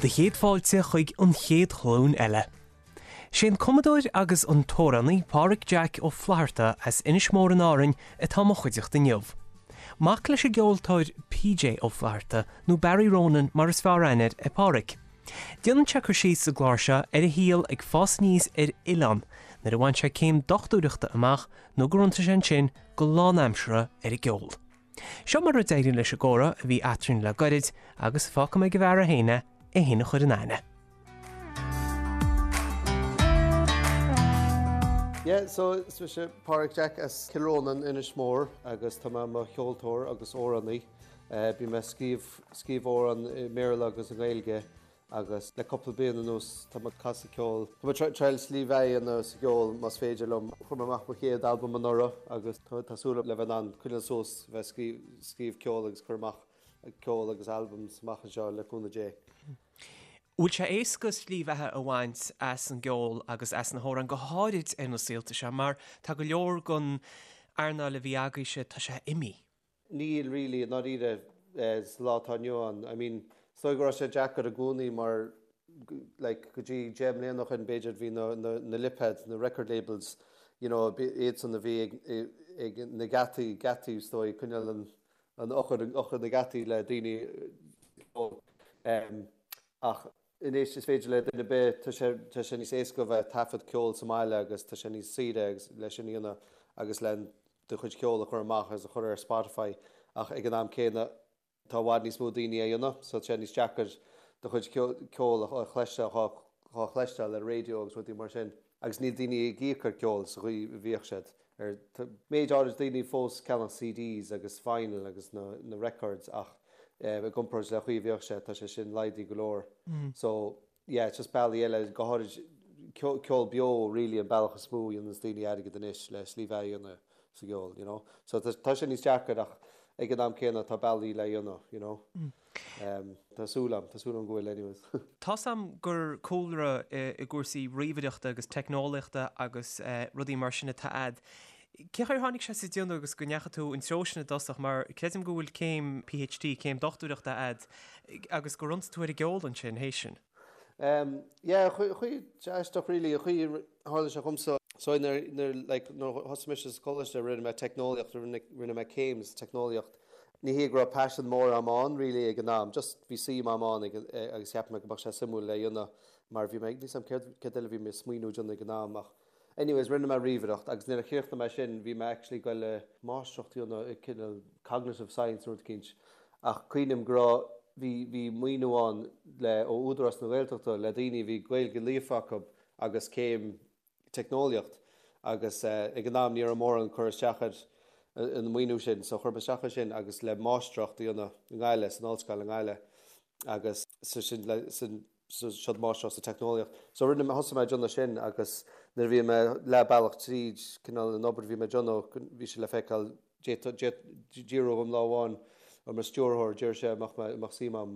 Do chéad fáilte chuig an chéad ghlúin eile. Sé an cumadóir agus an t-amhránaí Páraic Jack Ó Flatharta as Inis Mór in Árainn atá i mo chuideachta inniu. Mac leis an gceoltóir PJ Ó Flatharta, nó Barry Ronan mar is fearr aithne air, é Páraic. Déanann sé cur síos sa gclár seo ar a shaol ag fás aníos ar oileán nuair a bhain sé céim dochtúireachta amach nó gur iontaigh sé ansin go lánaimseartha ar an gceol. Seo mar a d'éirigh leis an gcomhrá a bhí eadrainn le goirid agus fágfaidh mé ag an bhfear é féin é, é féin a chur in aithne. Yeah, so is mise Páraic Jack as Cill Rónáin, Inis Mór agus tá mé i mo cheoltóir agus amhránaí. Bím ag scríobh, scríobh amhrán i mBéarla agus i nGaeilge agus le cúpla bliain anuas tá mé ag casadh ceoil. Tá mé ag triail slí bheatha a dhéanamh sa gceol más féidir liom. Chuir mé amach mo chéad albam anuraidh agus tá súil agam le bheith in ann coinneáil suas, bheith ag scríobh ceoil agus cur amach ceol agus albums amach anseo le cúnamh Dé. Bhfuil sé éasca slí bheatha a bhaint as an gceol agus as na hamhráin, go háirid ar na saolta seo, mar tá go leor den earnáil a bhí agaibhse, tá sé imithe. Níl really, i ndáiríre, sa lá atá inniu ann. I mean, is dóigh go raibh sé deacair i gcónaí mar like go dtí 10 mbliana ó shin b'fhéidir bhí na, na, na lipéid, na record labels, you know, iadsan a bhí ag, ag na geataí, geataí is dóigh, coinneáil an, an eochair, eochair na geataí le daoine um, ach anois is féidir le duine ar bith, tá sé, tá sé níos éasca a bheith ag taifead ceol sa mbaile agus tá sé níos saoire agus le sin a dhéanamh agus le do chuid ceoil a chur amach agus a chur ar Spotify ach ag an am céanna tá i bhfad níos mó daoine á dhéanamh so tá sé níos deacair do chuid ceoil a chloisteáil, dhá chloisteáil ar raidió agus rudaí mar sin agus níl daoine ag íoc ar ceol sa chaoi a bhíodh siad ar tá méid áirid daoine fós ag ceannach CDs agus vinyl agus na na records ach i gcomparáid le chaoi a bhíodh sé tá sé sin laghdaithe go leor so yeah it's just bealaí eile go háirid ceol beo really an bealach is mó a dhéananns daoine airgead anois le slí bheatha a dhéanamh sa gceol you know so tá sé níos deacair ach ag an am céanna tá bealaí le dhéanamh you know tá súil agam tá súil agam go bhfuil anyways. Tá's a'm gur cúlra i gcúrsaí ríomhaireachta agus teicneolaíochta agus rudaí mar sin atá a'd. Cén chaoi ar tháinig sé sa déanamh agus go ndeachaigh tú an treo sin i dtosach mar creidim go bhfuil céim PhD, céim dochtúireachta a'd agus gur iontaigh tú ar an gceol ansin théis sin. Yeah, chaoi aisteach really, an chaoi a tharla sé dhomsa. So nuair, nuair, like, nuair a thosaigh mise sa choláiste rinne mé teicneolaíocht, rinne, rinne mé céim sa teicneolaíocht. Ní hé go raibh paisean mór a'm ann really ag an am, just bhí suim a'm ann ag, agus cheap mé go mbeadh sé suimiúil le dhéanamh mar bhí mé, níl 's a'm céard, céard eile a bhí mé ag smaoineamh déanamh ag an am ach Anyways, rinne mé ríomhaireacht agus nuair a chríochnaigh mé sin bhí mé actually ag goil le máistreacht a dhéanamh i cineál cognitive science nó rud eicínt ach cuimhním go raibh, bhí, bhí maoiniú ann le, ó Údarás na Gaeltachta le daoine a bhí Gaeilge líofa acu agus céim teicneolaíocht agus ag an am ní raibh mórán cur isteach ar an maoiniú sin so chuir mé isteach ar sin agus le máistreacht a dhéanamh i nGaillimh, san ollscoil i nGaillimh agus sa sin le, san. siod máistreacht sa teicneolaíocht. So rinne mé, thosaigh mé ag déanamh sin agus nuair a bhí mé leath bealach tríd cineál an obair a bhí mé ag déanamh, bhí sé le feiceáil, d'iarradh orm lá amháin ó mo stiúrthóir, d'iarr sé an mbeadh mé, an mbeadh suim a'm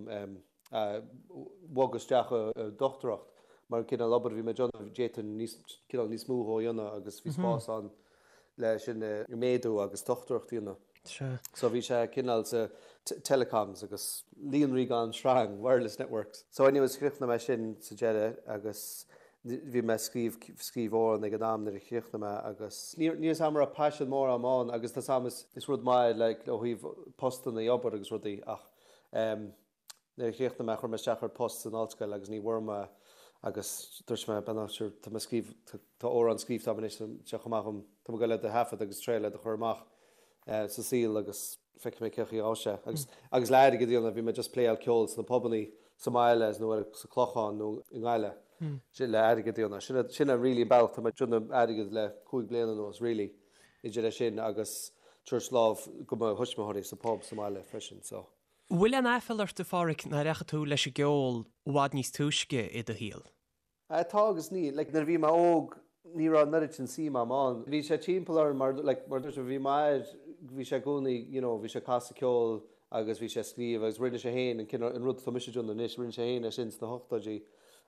bogadh isteach i dochtúireacht mar an cineál obair a bhí mé ag déanamh, d'fhéadfainn níos, cineál níos mó a dhéanamh agus bhí spás ann le sin a méadú agus dochtúireacht a dhéanamh. Sea. So bhí sé cineál sa telecoms agus líonraí gan sreang, wireless networks. So anyways chríochnaigh mé sin sa deireadh agus bhí mé ag scríobh, scríobh amhrán ag an am nuair a chríochnaigh mé agus níl 'fhios a'm an raibh paisean mór a'm ann agus tá 's a'm is, is rud maith like ó thaobh postanna obair agus rudaí ach em Nuair a chríochnaigh mé, chuir mé isteach ar post san ollscoil agus ní bhfuair mé agus dúirt mé, bhuel sure, tá mé ag scríobh, tá amhrán scríobhta agam anois, tá sé chomh maith dhom, tá mé ag goil iad a thaifead agus triail iad a chur amach sa saol agus feicfidh mé cén chaoi a ghabhfaidh sé. Agus, agus le airgead a dhéanamh, bhí mé just pléáil ceol sna pubannaí sa mbaile nó ar, sa Clochán nó i nGaillimh. Sin le airgead a dhéanamh. Sin, sin an really an bealach tá mé ag déanamh airgead le 5 bliana anuas really, idir é sin agus tabhairt lámh go mo thuismitheoirí sa pub sa mbaile freisin so. Bhfuil aon aiféala ort, a Pháraic, nár dheachaigh tú leis an gceol i bhfad níos túisce i do shaol? Tá agus níl. Like, nuair a bhí mé óg, ní raibh an oiread sin suim a'm ann. Bhí sé timpeall orm mar, like, mar dúirt mé, bhí m'athair, bhí sé i gcónaí, you know, bhí sé ag casadh ceoil agus bhí sé ag scríobh agus rinne sé féin an cineál, an rud atá mise ag déanamh anois, rinne sé féin é sin sna hochtóidí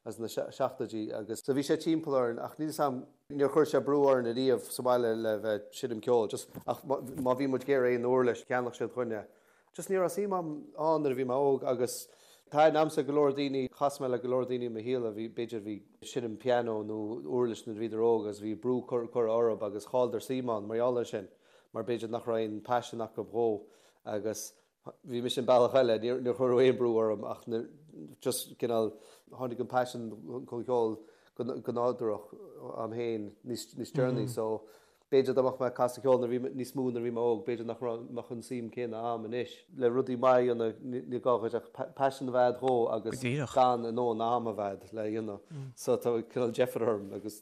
agus sna seachtóidí agus, so bhí sé timpeall orainn ach níl 'fhios a'm, níor chuir sé brú orainn ariamh sa bhaile le bheith ag seinm ceoil, just, ach má bhí muid ag iarraidh aon uirlis, cheannach siad dhúinn é. Just ní raibh suim a'm ann nuair a bhí mé óg agus. Thaitin a'msa go leor daoine, chas mé le go leor daoine i mo shaol a bhí, b'fhéidir, bhí ag seinm pianó nó uirlis nuair a bhíodar óg agus bhí brú curtha orthu agus chailleadar suim ann mar gheall air sin mar b'fhéidir nach raibh aon paisean acu dhó agus bhí mise an bealach eile, níor cuireadh aon brú orm ach just cineál tháinig an paisean chun ceoil go nádúrach a'm féin níos deireanaí so B'fhéidir dá mbeadh mé ag casadh ceoil nuair a bhí mé, níos mó nuair a bhí mé óg, b'fhéidir nach raibh, mbeadh an suim céanna a'm anois. Le rudaí maith a dhéanamh, ní gá dhuit ach paisean a bheith a'd dhó agus gan a ndóthain ama a bheith a'd le dhéanamh. So tá cineál deifir orm agus.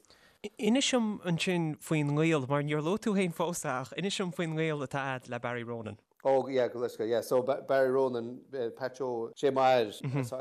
Inis dom ansin faoin ngaol, mar níor luaigh tú féin fós é, ach inis dom faoin ngaol atá a'd le Barry Ronan. Oh yeah, go leisce, yeah. So Barry Ronan, Pat Joe, sé m'athair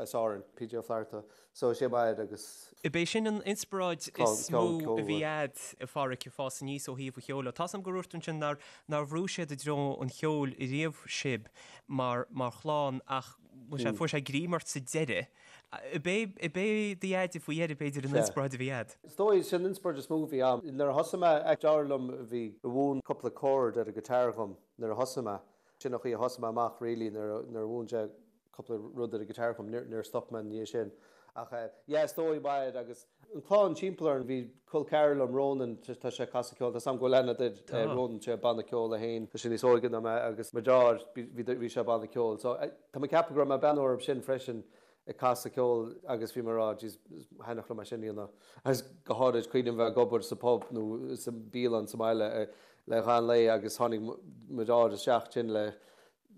as Árainn, PJ Ó Flatharta. So sé m'athair agus. Ab é sin an inspioráid is mó a bhí a'd, a Pháraic, ag fás aníos ó thaobh an cheoil. Tá's a'm gur dhúirt tú ansin nár nár bhrúigh siad i dtreo an cheoil riamh sibh mar mar chlann ach bhfuil sé fuair sé greim ort sa deireadh. Ab é ab é do dheaide faoi dheireadh b'fhéidir an inspioráid a bhí a'd? Is dóigh, sin an inspioráid is mó a bhí a'm. Nuair a thosaigh mé, deartháir liom a bhí a mhúin cúpla chord ar an guitar dhom. Nuair a thosaigh mé, sin an chaoi a thosaigh mé amach really nuair a mhúin sé cúpla rud ar an guitar dhom, níor stop mé ina dhiaidh sin. Ach yeah is dóigh m'athair agus an clann timpeall orainn, bhí col ceathrar liom, Ronan, tá sé ag casadh ceoil, tá 's a'm go bhfuil aithne a'd ar Ronan, sé banna ceoil é féin, tá sé níos óige ná mé agus mo dheartháir, bhí bhí sé banna ceoil. So tá mé ag ceapadh go raibh mé ag breathnú orthu sin freisin ag casadh ceoil agus bhí mé ag rá jeez thaitneodh liom é sin a dhéanamh agus go háirid cuimhním bheith ag obair sa pub nó sa bialann sa mbaile le ghan lae agus tháinig mo dheartháir isteach sin le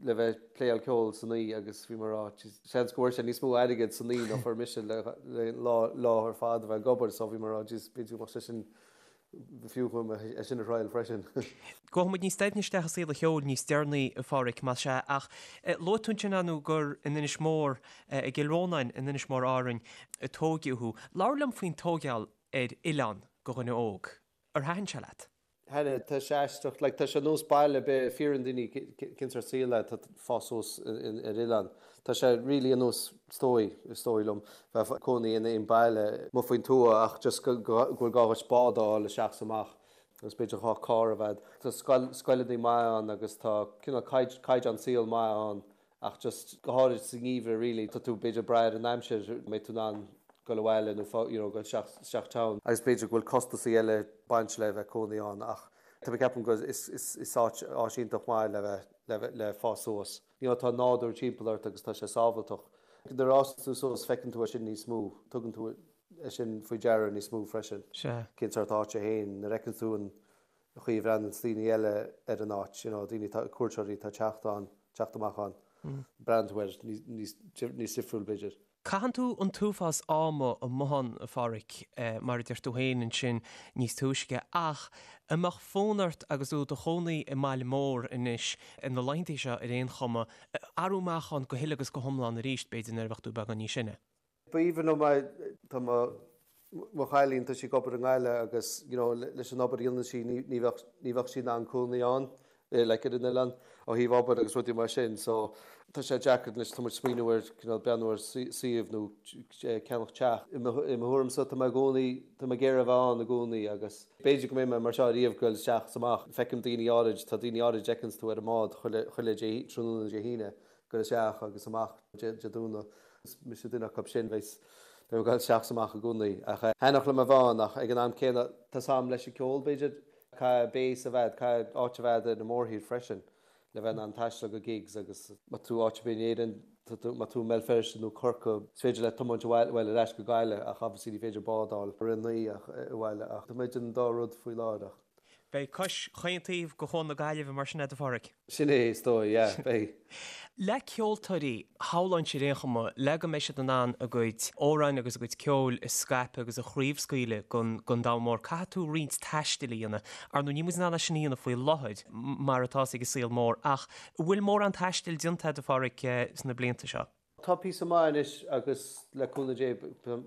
le bheith ag pléáil ceoil san oíche agus bhí mé ag rá jeez seans go bhfuair sé níos mó airgid san oíche ná fuair mise le le lá lá ar fad a bheith ag obair so bhí mé ag rá jeez b'fhéidir go mbeadh sé sin B'fhiú dhom é sin a thriail freisin. Gabhfaidh muid níos doimhne isteach i saol an cheoil níos deireanaí, a Pháraic, más ea, ach luaigh tú ansin, ar ndóigh, gur in Inis Mór, i gCill Rónáin in Inis Mór Árainn, a tóigeadh thú. Labhair liom faoin tóigeáil ar oileán do dhuine óg. Ar thaitin sé leat? Thaitin, tá sé aisteach, like tá sé nós baile ar bith, fiafraíonn daoine cén sórt saol é, tá fás suas ar oileán. Tá sé really ar nós, is dóigh, is dóigh liom, bheith ag cónaí in aon baile amuigh faoin tuath ach just go bhfuil gá dhuit bád a fháil isteach is amach agus b'fhéidir gá carr a bheith a'd. Tá scoil, scoileanna maith ann agus tá cineál caighdeán saoil maith ann ach just go háirid sa ngeimhreadh really tá tú b'fhéidir ag brath ar an aimsir an mbeidh tú in ann dul abhaile nó you know dul isteach, isteach town. Agus b'fhéidir go bhfuil costasaí eile ag baint le bheith cónaí ann ach tá mé ag ceapadh go is, is, is áit, áit iontach maith le bheith, le bheith, le fás suas. You know, tá nádúr timpeall ort agus tá sé sábhailteach. Nuair a fhásann tú suas feiceann tú é sin níos mó, tugann tú é sin faoi deara níos mó freisin. Sea. Cén sórt áit é féin, nuair a fheiceann tú an chaoi a bhreathnaíonn daoine eile ar an áit, you know, daoine atá, cuairteoirí atá ag teacht ann, teacht amach ann, breathnaíonn tú air níos, níos difriúil b'fhéidir. Caitheann tú an t-uafás ama amuigh ann, a Pháraic, mar a deir tú féin ansin níos túisce, ach an mbeadh fonn ort agus tú i do chónaí i mbaile mór anois, ar na laethanta seo ar aon chuma, athrú amach ann go huile agus go hiomlán arís, b'fhéidir, nuair a bheadh tú beagán níos sine? B'aoibhinn liom é. Tá mo mo chailín, tá sí ag obair i nGaillimh agus, you know, leis an obair a dhéanann sí ní bheadh ní bheadh sí in ann cónaí ann. like ar an oileán ó thaobh obair agus rudaí mar sin so tá sé deacair anois tá muid smaoineamh ar cineál breathnú ar suíomh nó ceannach teach. I mo thuairimse tá mé i gcónaí tá mé ag iarraidh a bheith ann i gcónaí agus b'fhéidir go mbeidh mé mar seo ariamh goil isteach is amach. Feicim daoine áirid tá daoine áirid fheiceanns tú ar an mbád chuile chuile Dé tráthnóna Dé hAoine goil isteach agus amach Dé Domhnaigh. Is mise duine acu sin bheidh beidh mé ag goil isteach is amach i gcónaí ach thaitneodh liom a bheith ann ach ag an am céanna tá 's a'm leis an ceol b'fhéidir Caithfidh base a bheith, caithfidh áit a bheith ar an mórthír freisin le bheith in ann taisteal go gigs agus má tá tú áit ar bith in Éirinn, tá tú, má tá tú i mBéal Feirste nó Corcaigh, is féidir leat tiomáint abhaile, bhuel ar ais go Gaillimh ach obviously ní féidir bád a fháil i rith an lae ach abhaile ach tá mé idir an dá rud faoi láthair ach. Beidh cois chaon taobh de Chuan na Gaillimhe mar sin agat a Pháraic. Sin é, is dóigh, yeah, beidh. Le ceoltóirí, shamhlóinnse ar aon chuma, le go mbeidh siad in ann a gcuid amhráin agus a gcuid ceoil a scaipeadh agus a chraobhscaoileadh don domhan mór, caithfidh tú roinnt taistil a dhéanamh. Ar ndóigh, níl muid in ann é sin a dhéanamh faoi láthair, mar atá ag an saol mór, ach an bhfuil mórán taistil déanta agat, a Pháraic, sna blianta seo? Tá píosa maith anois agus le cúnamh Dé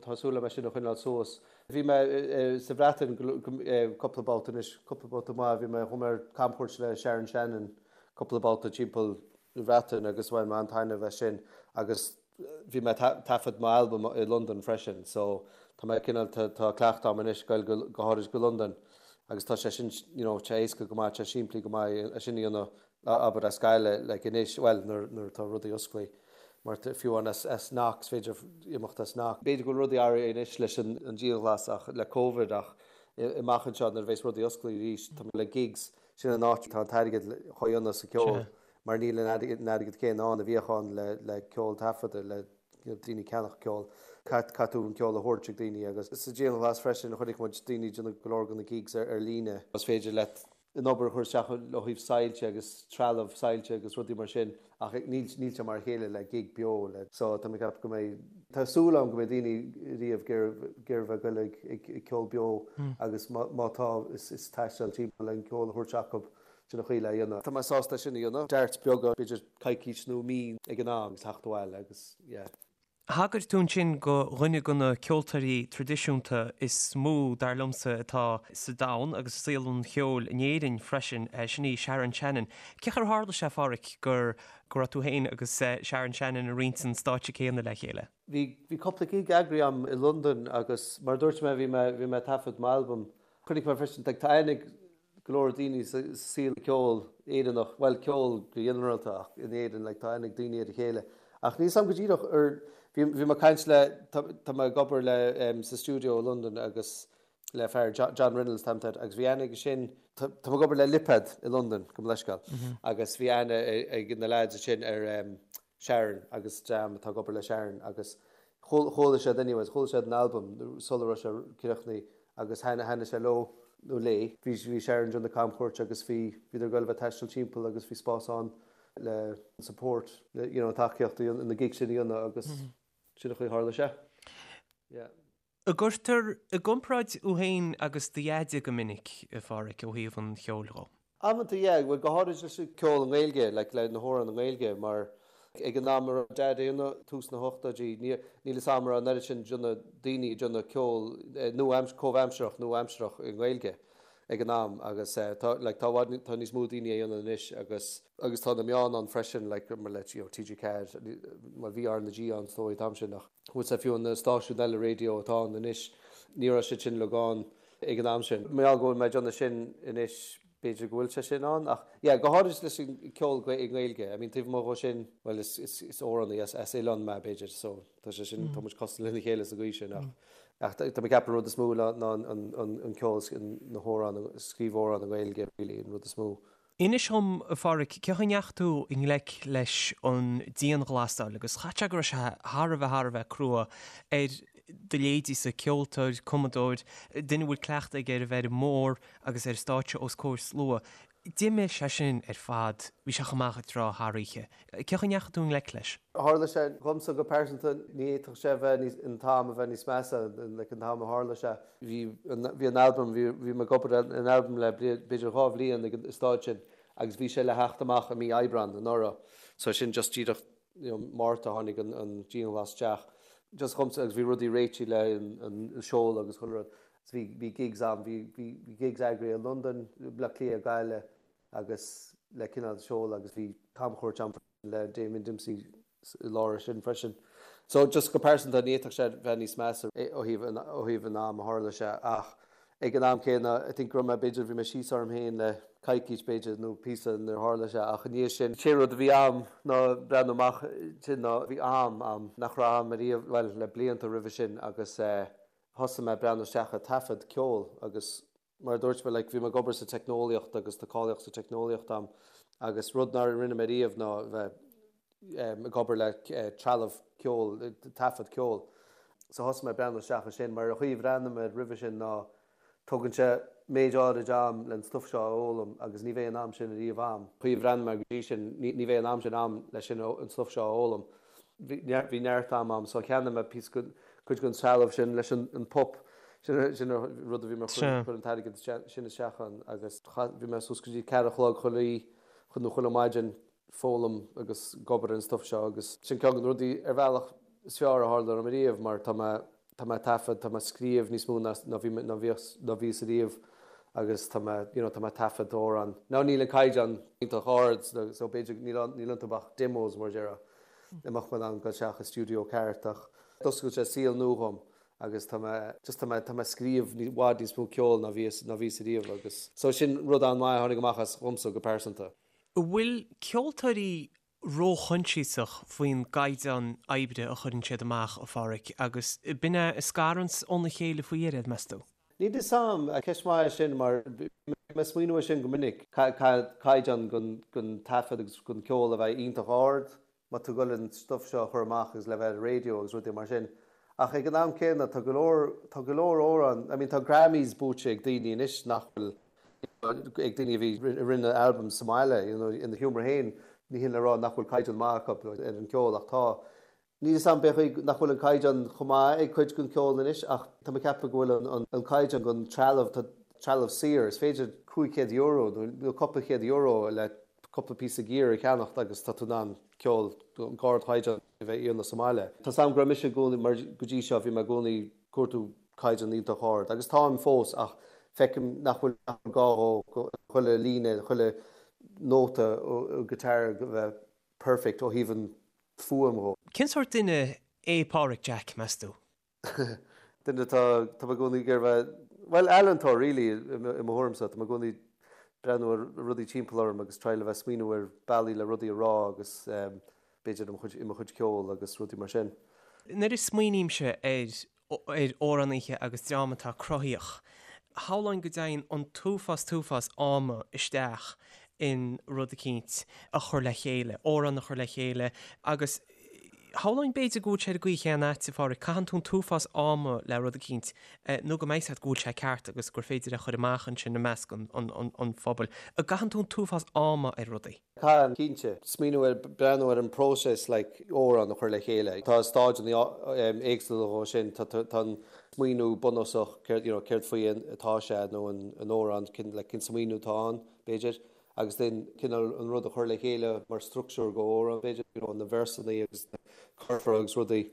tá súil agam é sin a choinneáil suas. Bhí mé sa Bhreatain cúpla babhta anois, cúpla babhta maith, bhí mé, chuaigh mé ar camchuairt le Sharon Shannon cúpla babhta timpeall na Breataine agus bhain mé an-taitneamh as sin agus bhí mé ag taifead m'albam i Londain freisin so tá mé cineál, tá cleachtadh agam anois goil go háirid go Londain agus tá sé sin you know tá sé éasca go maith, tá sé simplí go maith é sin a dhéanamh abair as Gaillimh like anois, bhuel nuair nuair atá rudaí osclaí. Mar fiú amháin as Knock, is féidir imeacht as Knock. B'fhéidir go bhfuil rudaí athraithe anois leis an dianghlas ach le Covid ach amach anseo nuair a bheas rudaí oscailte arís, tá le gigs, sin an áit atá an t-airgead á dhéanamh sa ceol mar níl an airgead céanna ann a bhíodh ann le ceol taifeadta, le daoine ceannach ceol. Caithfidh tú an ceol a thabhairt ag daoine agus sa dianghlas freisin chonaic muid daoine ag déanamh go leor de na gigs ar líne. Is féidir leat an obair a chur isteach ó thaobh soilse agus trealamh soilse agus rudaí mar sin ach níl níl sé mar a chéile le gig beo le so tá mé ag ceapadh go mbeidh tá súil agam go mbeidh daoine ariamh ag iarraidh bheith ag goil ag ag ceol beo agus má má tá is is taisteal timpeall le an ceol a thabhairt acu sin an chaoi le dhéanamh. Tá mé sásta é sin a dhéanamh. Darts beaga b'fhéidir coicís nó mí ag an am agus theacht abhaile agus yeah. Thagair tú ansin go dhuine de na ceoltóirí traidisiúnta is mó, dar liomsa, atá sa domhan agus i saol an cheoil in Éirinn freisin, sin í Sharon Shannon. Cén chaoi ar tharla sé, a Pháraic, gur go raibh tú féin agus Sharon Shannon ag roinnt an stáitse céanna le chéile? Bhí bhí cúpla gig eagraithe agam i Londain agus mar a dúirt mé bhí mé bhí mé ag taifead m'albam. Chonaic mé freisin tá aithne ag go leor daoine sa saol ceoil Éireannach, bhuel ceol go ginearálta ach in Éirinn like tá aithne ag daoine ar a chéile. Ach níl 's a'm go díreach ar, bhí bhí mé ag caint le, tá tá mé ag obair le em sa stiúideo i Londain agus le fear John Reynolds tá air agus bhí aithne aige sin, tá tá mé ag obair le Lipad i Londain gabh mo leithscéal agus bhí aithne ag na lads ansin ar em Sharon agus dream atá ag obair le Sharon agus chuala siad anyways, chuala siad an albam sula raibh sé críochnaithe agus thaitnigh sé leo nó léi. Bhí bhí Sharon ag déanamh camchuairt agus bhí bhíodar ag goil a bheith ag taisteal timpeall agus bhí spás ann le support, le you know tacaíocht na gigs sin a dhéanamh agus sin an chaoi a tharla sé. Yeah. An gcuirtear i gcomparáid thú féin agus do Dheaide go minic, a Pháraic, ó thaobh an cheoil dhó? Amanta, yeah, bhuel go háirid leis an ceol i nGaeilge, like le na hamhráin i nGaeilge, mar ag an am a raibh Dad ag déanamh, tús na hochtóidí, níl fhios a'm an raibh an oiread sin de daoine ag déanamh ceol nua, comhaimsearach, nua-aimsearach i nGaeilge ag an am agus tá, like tá i bhfad, tá níos mó daoine á dhéanamh anois agus, agus tá na meáin ann freisin, like mar le, you know, TG4, bhuel bhí R na G ann is dóigh an t-am sin ach. Bhfuil sé fiú na stáisiúin eile raidió atá ann anois, ní raibh siad sin uilig ann ag an am sin. Mar gheall go bhfuil mé ag déanamh sin anois, b'fhéidir go bhfuil sé sin ann ach yeah, go háirid leis an ceol i nGaeilge. I mean taobh amuigh dhó sin, bhuel is, is, is amhránaí as, as oileán mé b'fhéidir so tá sé sin, tá muid cosúil lena chéile sa gcaoi sin ach, ach tá mé ag ceapadh an rud is mó ná, ná an, an, an, an ceol, na hamhráin, scríobh amhrán i nGaeilge really an rud is mó. Inis dhom, a Pháraic, cén chaoi a ndeachaigh tú i ngleic leis an dianghlasáil agus chaithfeadh sé go raibh sé thar a bheith thar a bheith crua ar do leithéidíse, ceoltóir, cumadóir, duine a bhfuil cleachtadh aige ar a bheith ar an mbord agus ar stáitse os comhair slua. D'imigh sé sin ar fad, bhí sé chomh maith ag trá thar oíche. Cén chaoi a ndeachaigh tú i ngleic leis? Tharla sé dhomsa go pearsanta, ní fhéadfadh sé a bheith níos, an t-am a bheith níos measa, like an t-am a tharla sé. Bhí bhí an albam, bhí bhí mé ag obair ar an albam le b'fhéidir 2 bhliain ag an staid sin agus bhí sé le theacht amach i mí Aibreán anuraidh. So sin just díreach you know Márta tháinig an an dianghlas isteach. Just dhomsa agus bhí rudaí réitithe le an an seoladh agus chuile rud. So bhí bhí gigs ann, bhí bhí bhí gigs eagraithe i Londain, Bleá Cliath, Gaillimh agus le cineál seoladh agus bhí camchuairt ann le Damien Dempsey i lár sin freisin. So just go pearsanta ní fhéadfadh sé bheith níos measa ó thaobh ó thaobh an am a tharla sé ach ag an am céanna I think go raibh mé b'fhéidir bhí mé síos orm féin le coicís b'fhéidir nó píosa nuair a tharla sé ach i ndiaidh sin sé rud a bhí a'm ná breathnú amach sin ná bhí am a'm nach raibh a'm ariamh bhuel le blianta roimhe sin agus eh thosaigh mé breathnú isteach ag taifead ceoil agus Mar a dúirt mé, like, bhí mé ag obair sa teicneolaíocht agus tá cáilíocht sa teicneolaíocht a'm agus rud nár rinne mé riamh ná bheith ag obair le trealamh ceoil, taifead ceoil. So thosaigh mé ag breathnú isteach ansin mar an chaoi a bhreathnaigh mé air roimhe sin ná tógann sé méid áirid am le an stuif seo a fhoghlaim agus ní bheidh an am sin ariamh a'm. Chaoi a bhreathnaigh mé go dtí sin ní bheidh an am sin a'm leis sin an stuif seo a fhoghlaim. Bhí neart am a'm so cheannaigh mé píosa cuid den trealamh sin leis an pup sin sin an rud a bhí mé ag cur an t-airgead sin isteach ann agus bhí mé suas go dtí ceathair a chlog chuile oíche nó chuile maidin ag foghlaim agus ag obair ar an stuif seo agus sin ceann de na rudaí ar bhealach is fearr a tharla dom ariamh mar tá mé tá mé ag taifead, tá mé ag scríobh níos mó ná ná bhí ná bhíos ná bhíos ariamh agus tá mé you know tá mé ag taifead amhrán. Now níl an caighdeán iontach ard so b'fhéidir níl níl iontu ach demos mar a déarfá. Dá mbeadh mé in ann dul isteach i stiúideo ceart ach d'oscail sé saol nua dhom agus tá mé just tá mé tá mé ag scríobh i bhfad níos mó ceoil ná bhíos ná bhíos ariamh agus so sin rud an-mhaith a tháinig amach as dhomsa go pearsanta. An bhfuil ceoltóirí. róchoinsiasach faoin gcaighdeán oibre a chuireann siad amach, a Pháraic, agus b'in é a scaranns óna chéile faoi dheireadh, meas tú? Níl 'fhios a'm, ceist mhaith é sin mar bím ag smaoineamh air sin go minic, caighdeán gon taifead agus gon ceol a bheith iontach ard má tá tú ag goil an stuif seo a chur amach agus le bheith ar an raidió agus rudaí mar sin. Ach ag an am céanna tá go leor, tá go leor amhrán, I mean tá Grammys buaite ag daoine anois nach bhfuil, ag daoine a bhí, a rinne albums sa mbaile, you know, ina sheomra féin, ní hin le rá nach bhfuil caighdeán maith acu ar an ceol ach tá. Níl 'fhios a'm b'fhéidir nach bhfuil an caighdeán chomh maith ag cuid den cheol anois ach tá mé ag ceapadh go bhfuil an caighdeán den trealamh, tá trealamh saor, is féidir €500 nó cúpla chéad euro le cúpla píosa gear a cheannacht agus tá tú in ann ceol d'ardchaighdeán a bheith a dhéanamh sa mbaile. Tá 's a'm go raibh mise i gcónaí, mar go dtí seo bhí mé i gcónaí ag cuartú caighdeán iontach ard agus táim fós ach feicim nach bhfuil gá dhó chuile líne, chuile nóta guitar a bheith perfect ó thaobh an fuaim dhó. Cén sórt duine é Páraic Jack, meas tú? Duine atá, tá mé i gcónaí ag iarraidh bheith, bhuel, ealaíontóir really i mo thuairimse. Tá mé i gcónaí ag breathnú ar rudaí timpeall orm agus triail a bheith smaoineamh ar bealaí le rudaí a rá agus b'fhéidir i mo chuid ceoil agus rudaí mar sin. Nuair a smaoinímse ar ar amhránaithe agus dream atá cruthaíoch. Shamhlóinn go dtéann an t-uafás t-uafás ama isteach in rud eicínt a chur le chéile, amhrán a chur le chéile agus shamhlóinn b'fhéidir go bhfuil sé ar an gcaoi chéanna agat, a Pháraic, caitheann tú an t-uafás ama le rud eicínt nó go mbeidh 's agat go bhfuil sé ceart agus gur féidir é a chur amach ansin i measc an phobail. An gcaitheann tú an t-uafás ama ar rudaí? Caitheann, cinnte. Smaoineamh ar, breathnú ar an bpróiseas like amhrán a chur le chéile. Tá stáideanna éagsúla dhó sin. Tá tá an smaoineamh bunúsach céard you know céard faoi atá sé nó an an amhrán cén like cén smaoineamh atá ann b'fhéidir agus then cineál an rud a chur le chéile mar structúr go amhrán b'fhéidir you know na véarsanna agus na curfá agus rudaí.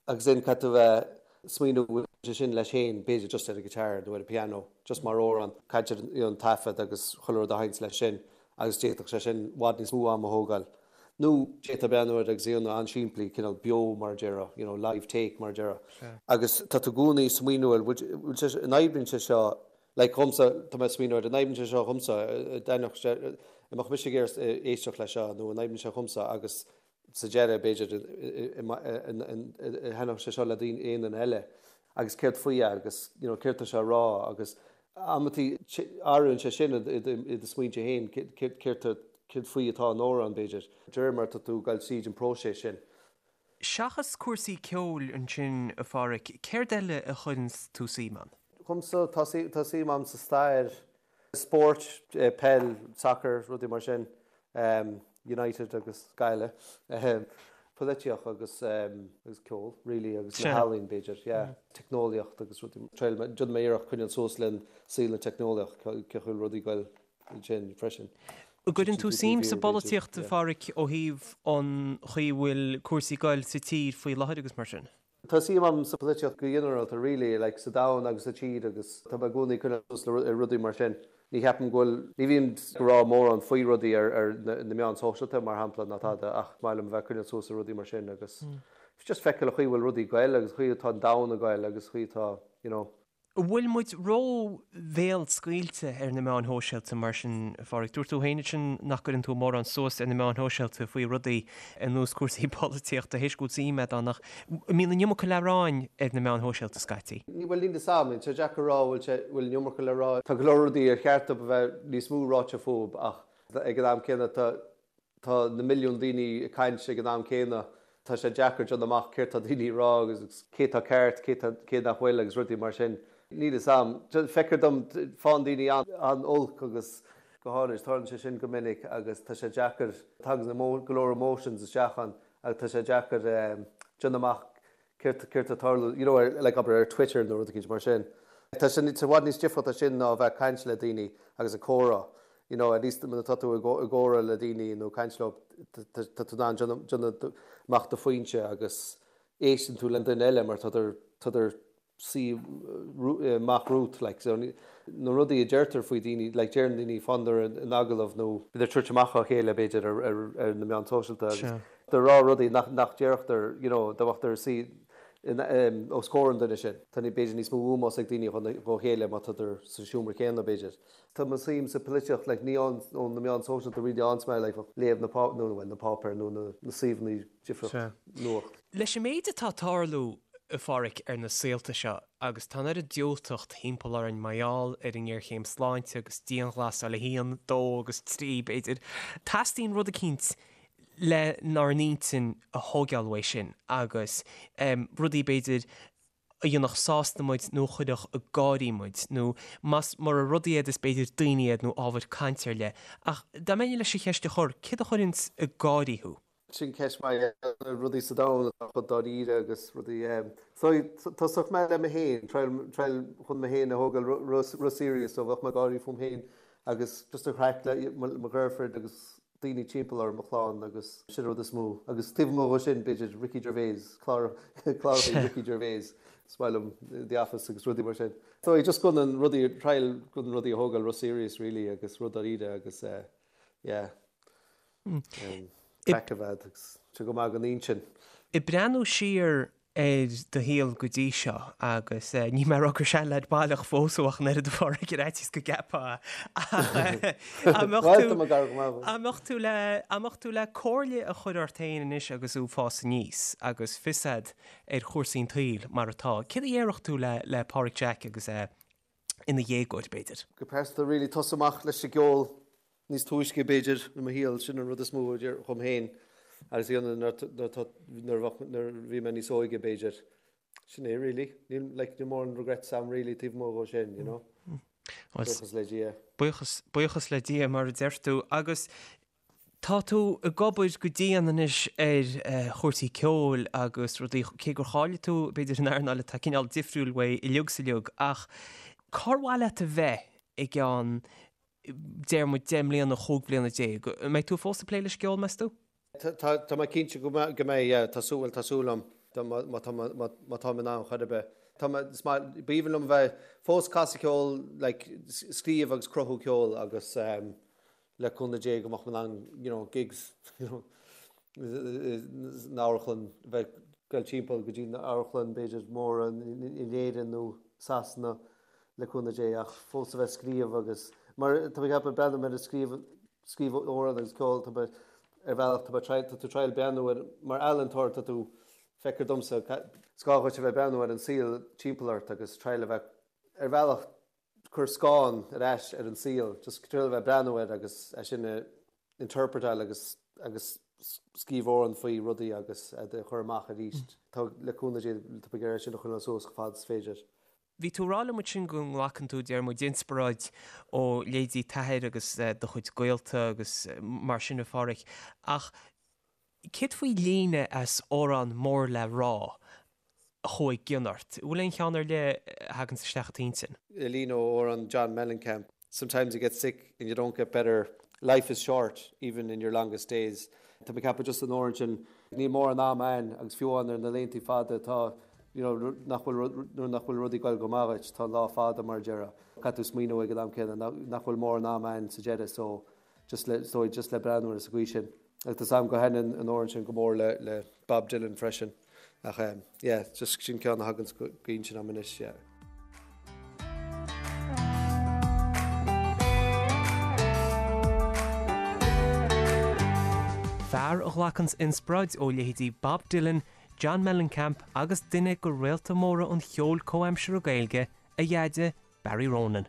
Agus then caithfidh tú bheith smaoineamh bhfuil sé sin leis féin, b'fhéidir just ar an guitar nó ar an piano, just mar amhrán, caithfidh you know an taifead agus chuile rud a sheinnt leis sin agus d'fhéadfadh sé sin i bhfad níos mó ama a thógáil. Nó d'fhéadfá breathnú air agus é a dhéanamh an-simplí, cineál beo mar a déarfá, you know live take mar a déarfá. Agus tá tú i gcónaí ag smaoineamh air, bhfuil sé, an oibríonn sé seo, like dhomsa, tá mé ag smaoineamh air, an oibríonn sé seo dhomsa, an dtaitneodh sé, an mbeadh mise ag iarraidh éisteacht leis seo nó an oibríonn sé dhomsa agus sa deireadh, b'fhéidir, thaitneodh sé seo le daoine, aon duine eile agus céard faoi é agus you know céard tá sé a rá agus amantaí athraíonn sé sin i do smaointe féin céard céard faoi atá an amhrán, b'fhéidir, de réir mar atá tú ag dul tríd an próiseas sin. Seachas cúrsaí ceoil ansin, a Pháraic, céard eile a chuireanns tú suim ann? Dhomsa, tá suim agam sa stair. Spóirt, peil, sacar, rudaí mar sin, United agus Gaillimh, polaitíocht agus agus ceol really agus na healaín b'fhéidir, yeah. Teicneolaíocht agus rudaí, triail, déanfaidh mé iarracht coinneáil suas le saol na teicneolaíocht, cén chaoi a bhfuil rudaí ag goil ansin freisin. An gcuireann tú suim sa bpolaitíocht, a Pháraic, ó thaobh an chaoi a bhfuil cúrsaí ag goil sa tír faoi láthair agus mar sin? Tá suim agam sa pholaitíocht go ginearálta really, like sa domhan agus sa tír agus tá mé i gcónaí ag coinneáil suas le rudaí mar sin. Ní cheapaim go bhfuil, ní bhím ag rá mórán faoi rudaí ar ar na meáin sóisialta mar shampla ná tada ach is maith liom a bheith ag coinneáil suas le rudaí mar sin agus just feiceáil an chaoi a bhfuil rudaí ag goil agus an chaoi atá an domhan ag goil agus an chaoi atá, you know. An bhfuil muid ró-bhéalscaoilte ar na meáin shóisialta mar sin, a Pháraic? Dúirt tú féin ansin nach gcuireann tú mórán suas ar na meáin shóisialta faoi rudaí ar nós cúrsaí polaitíochta, théis go bhfuil suim agat ann, ach an mbíonn an iomarca le rá ar na meáin shóisialta scaití? Bhuel, níl 'fhios a'm. Tá sé deacair a rá bhfuil sé, bhfuil an iomarca le rá. Tá go leor rudaí ar cheart dóibh a bheith níos mó ráite fúthu ach ag an am céanna tá Tá na milliúin daoine ag caint ag an am céanna. Tá sé deacair déanamh amach céard tá daoine ag rá agus cé tá ceart, cé tá, cé nach bhfuil agus rudaí mar sin. Níl 'fhios a'm. Feictear dom, faigheann daoine an-olc agus go háirid, tarlaíonn sé sin go minic agus tá sé deacair, tagann go leor emotions isteach ann agus tá sé deacair déanamh amach céard céard tá ag tarlú, you know, ar, like, abair ar Twitter nó rud eicínt mar sin. Tá sé i bhfad níos difriúlta sin ná a bheith ag caint le daoine agus ag comhrá. You know, at least nuair atá tú i gcomhrá le daoine nó ag caint leo, tá tú in ann déanamh amach do phointe agus éisteann tú le duine eile mar tá tá suí amach romhat, like, so na rudaí a deirtear faoi daoine, like, deireann daoine faigheann in agallamh nó bíonn ag tabhairt amach á chéile b'fhéidir ar, ar, ar na meáin sóisialta agus ag rá rudaí nach, nach déarfadh, you know, dá mbeadh suí. Os comhair an duine sin. Tá b'fhéidir níos mó ómós ag daoine dhá chéile má tádar sa seomra céanna, b'fhéidir. Tá mo suim sa polaitíocht, like, ní ó na meáin sóisialta really ann mé, like, léamh na pá, nó, well, na páipéir nó na na suíomhanna difriúla nuacht. Leis an méid atá ag tarlú, a Pháraic, ar na saolta seo, agus tá an oiread diúltacht thimpeall orainn mar gheall ar an ngéarchéim sláinte agus dianghlasáil a haon, dó agus trí, b'fhéidir, teastaíonn rud eicínt lenár n-intinn a thóigeáil uaidh sin agus rudaí, b'fhéidir, a dhéanfadh sásta muid nó a chuirfeadh ag gáirí muid, nó más mura rudaí iad is b'fhéidir daoine iad nó ábhair cainte ar leith. Ach dá mbeinn leis an cheist a chur, céard a chuireanns ag gáirí thú? Sin ceist mhaith, na rudaí sa domhan atá chomh dáiríre agus rudaí. So, tosóidh mé le mé féin, triail, triail chun mé féin a thógáil ró-serious, so bheadh mé ag gáirí fúm féin agus just an chraic le mo dheirfiúr agus daoine timpeall orm, mo chlann agus sin an rud is mó. Agus taobh amuigh dhó sin, b'fhéidir Ricky Gervais, clár, cláracha Ricky Gervais, is maith liom The Office agus rudaí mar sin. So just chun an rudaí, triail chun rudaí a thógáil ró-serious really agus rud dáiríre agus eh yeah, craic a bheith agus tá go maith don intinn. Ag breathnú siar ar do shaol go dtí seo agus níl mé ag rá gur seanleaid baileach fós thú ach an oiread a Pháraic ar fhaitíos go gceapfá ach an mbeadh tú an mbeadh tú le an mbeadh tú le comhairle a chur ort féin anois agus tú ag fás aníos agus fios a'd ar chúrsaí an tsaoil mar atá, céard a dhéarfadh tú le le Páraic Jack agus é ina dhéagóir b'fhéidir? Go pearsanta really tosú amach leis an gceol níos túisce b'fhéidir i mo shaol, sin an rud is mó a déarfainn dhom féin agus a dhéanamh nuair a bhí mé níos óige b'fhéidir. Sin é really. Níl like níl mórán regrets a'm really taobh amuigh dhó sin, you know. Buíochas le Dia. Buíochas, buíochas le Dia mar a deir tú. Agus tá tú ag obair go dian anois ar chúrsaí ceoil agus rudaí, cé gur cháiligh tú b'fhéidir in earnáil atá cineál difriúil uaidh uilig 's uilig, ach cár mhaith leat a bheith i gceann deir muid 10 mbliana, 15 bliana. An mbeidh tú fós ag plé leis an gceol, meas tú? Tá mé cinnte go mbeidh, yeah. Tá súil, bhuel, tá súil agam, má tá, má táim in ann chor ar bith. Tá mé, is maith, b'aoibhinn liom a bheith fós ag casadh ceoil, like, scríobh agus cruthú ceoil agus le cúnamh Dé go mbeadh mé in ann, you know, gigs, you know, san amharclann, bheith ag dul timpeall go dtí na amharclann b'fhéidir móra in Éirinn nó Sasana. le cúnamh Dé, ach fós a bheith ag scríobh agus, mar tá mé ag ceapadh, breathnaím ar an scríobh, scríobh amhrán agus ceol, tá mé, ar bhealach, tá mé triail, tá tú triail breathnú ar, mar ealaíontóir tá tú, feictear domsa, is gá dhuit a bheith breathnú ar an saol timpeall ort agus triail a bheith, ar bhealach, cur scáth ar ais ar an saol, just triail a bheith breathnú air agus é sin a interpretáil agus, agus scríobh amhrán faoi rudaí agus iad a chur amach arís. Tá, le cúnamh Dé, tá mé ag iarraidh é sin a choinneáil suas chomh fada is féidir. Bhí tú ag rá liom ansin go nglacann tú, deir muid, inspioráid ó leithéidí t'athair agus do chuid gaolta agus mar sin a Pháraic, ach céard faoi líne as amhrán mór le rá a chuaigh i gcion ort? An bhfuil aon cheann ar leith a thaganns isteach i t'intinn? Líne ó amhrán John Mellencamp, Sometimes you get sick and you don't get better, life is short even in your longest days. Tá mé ag ceapadh just an amhrán sin, níl mórán am a'ainn agus fiú amháin ar na laethanta fada atá you know nach bhfuil nuair nach bhfuil rudaí ag goil go maith dhuit, tá an lá fada mar a déarfá. Caithfidh tú smaoineamh ag an am céanna nach bhfuil mórán am a'ainn sa deireadh so just le so just le breathnú air sa gcaoi sin. Agus tá 's a'm go thaitníonn an amhrán sin go mór le le Bob Dylan freisin. Ach eh yeah, just sin ceann a thagann go intinn a'm anois, yeah. Fear a ghlacanns inspioráid ó leithéidí Bob Dylan, John Mellencamp agus duine de réalta móra an cheoil comhaimseartha Gaeilge, a dheaide, Barry Ronan.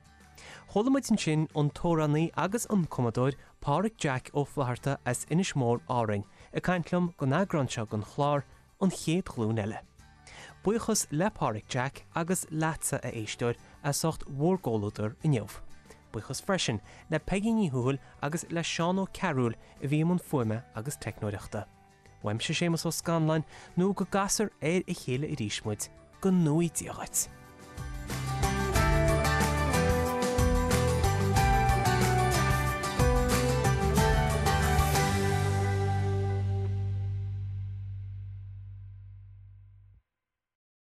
Chuala muid ansin an t-amhránaí agus an cumadóir Páraic Jack Ó Flatharta as Inis Mór, Árainn, ag caint liom don eagrán seo den chlár, An Chéad Ghlúin Eile. Buíochas le Páraic Jack agus leatsa, a éisteoir, as ucht bhur gcomhluadar inniu. Buíochas freisin le Peigí Ní Thuathail agus le Seán Ó Cearúil a bhí i mbun fuaime agus teicneoireachta. Uaimse Séamus Ó Scanláin, nó go gcasfar ar a chéile arís muid, go ngnóthaí Dia dhuit!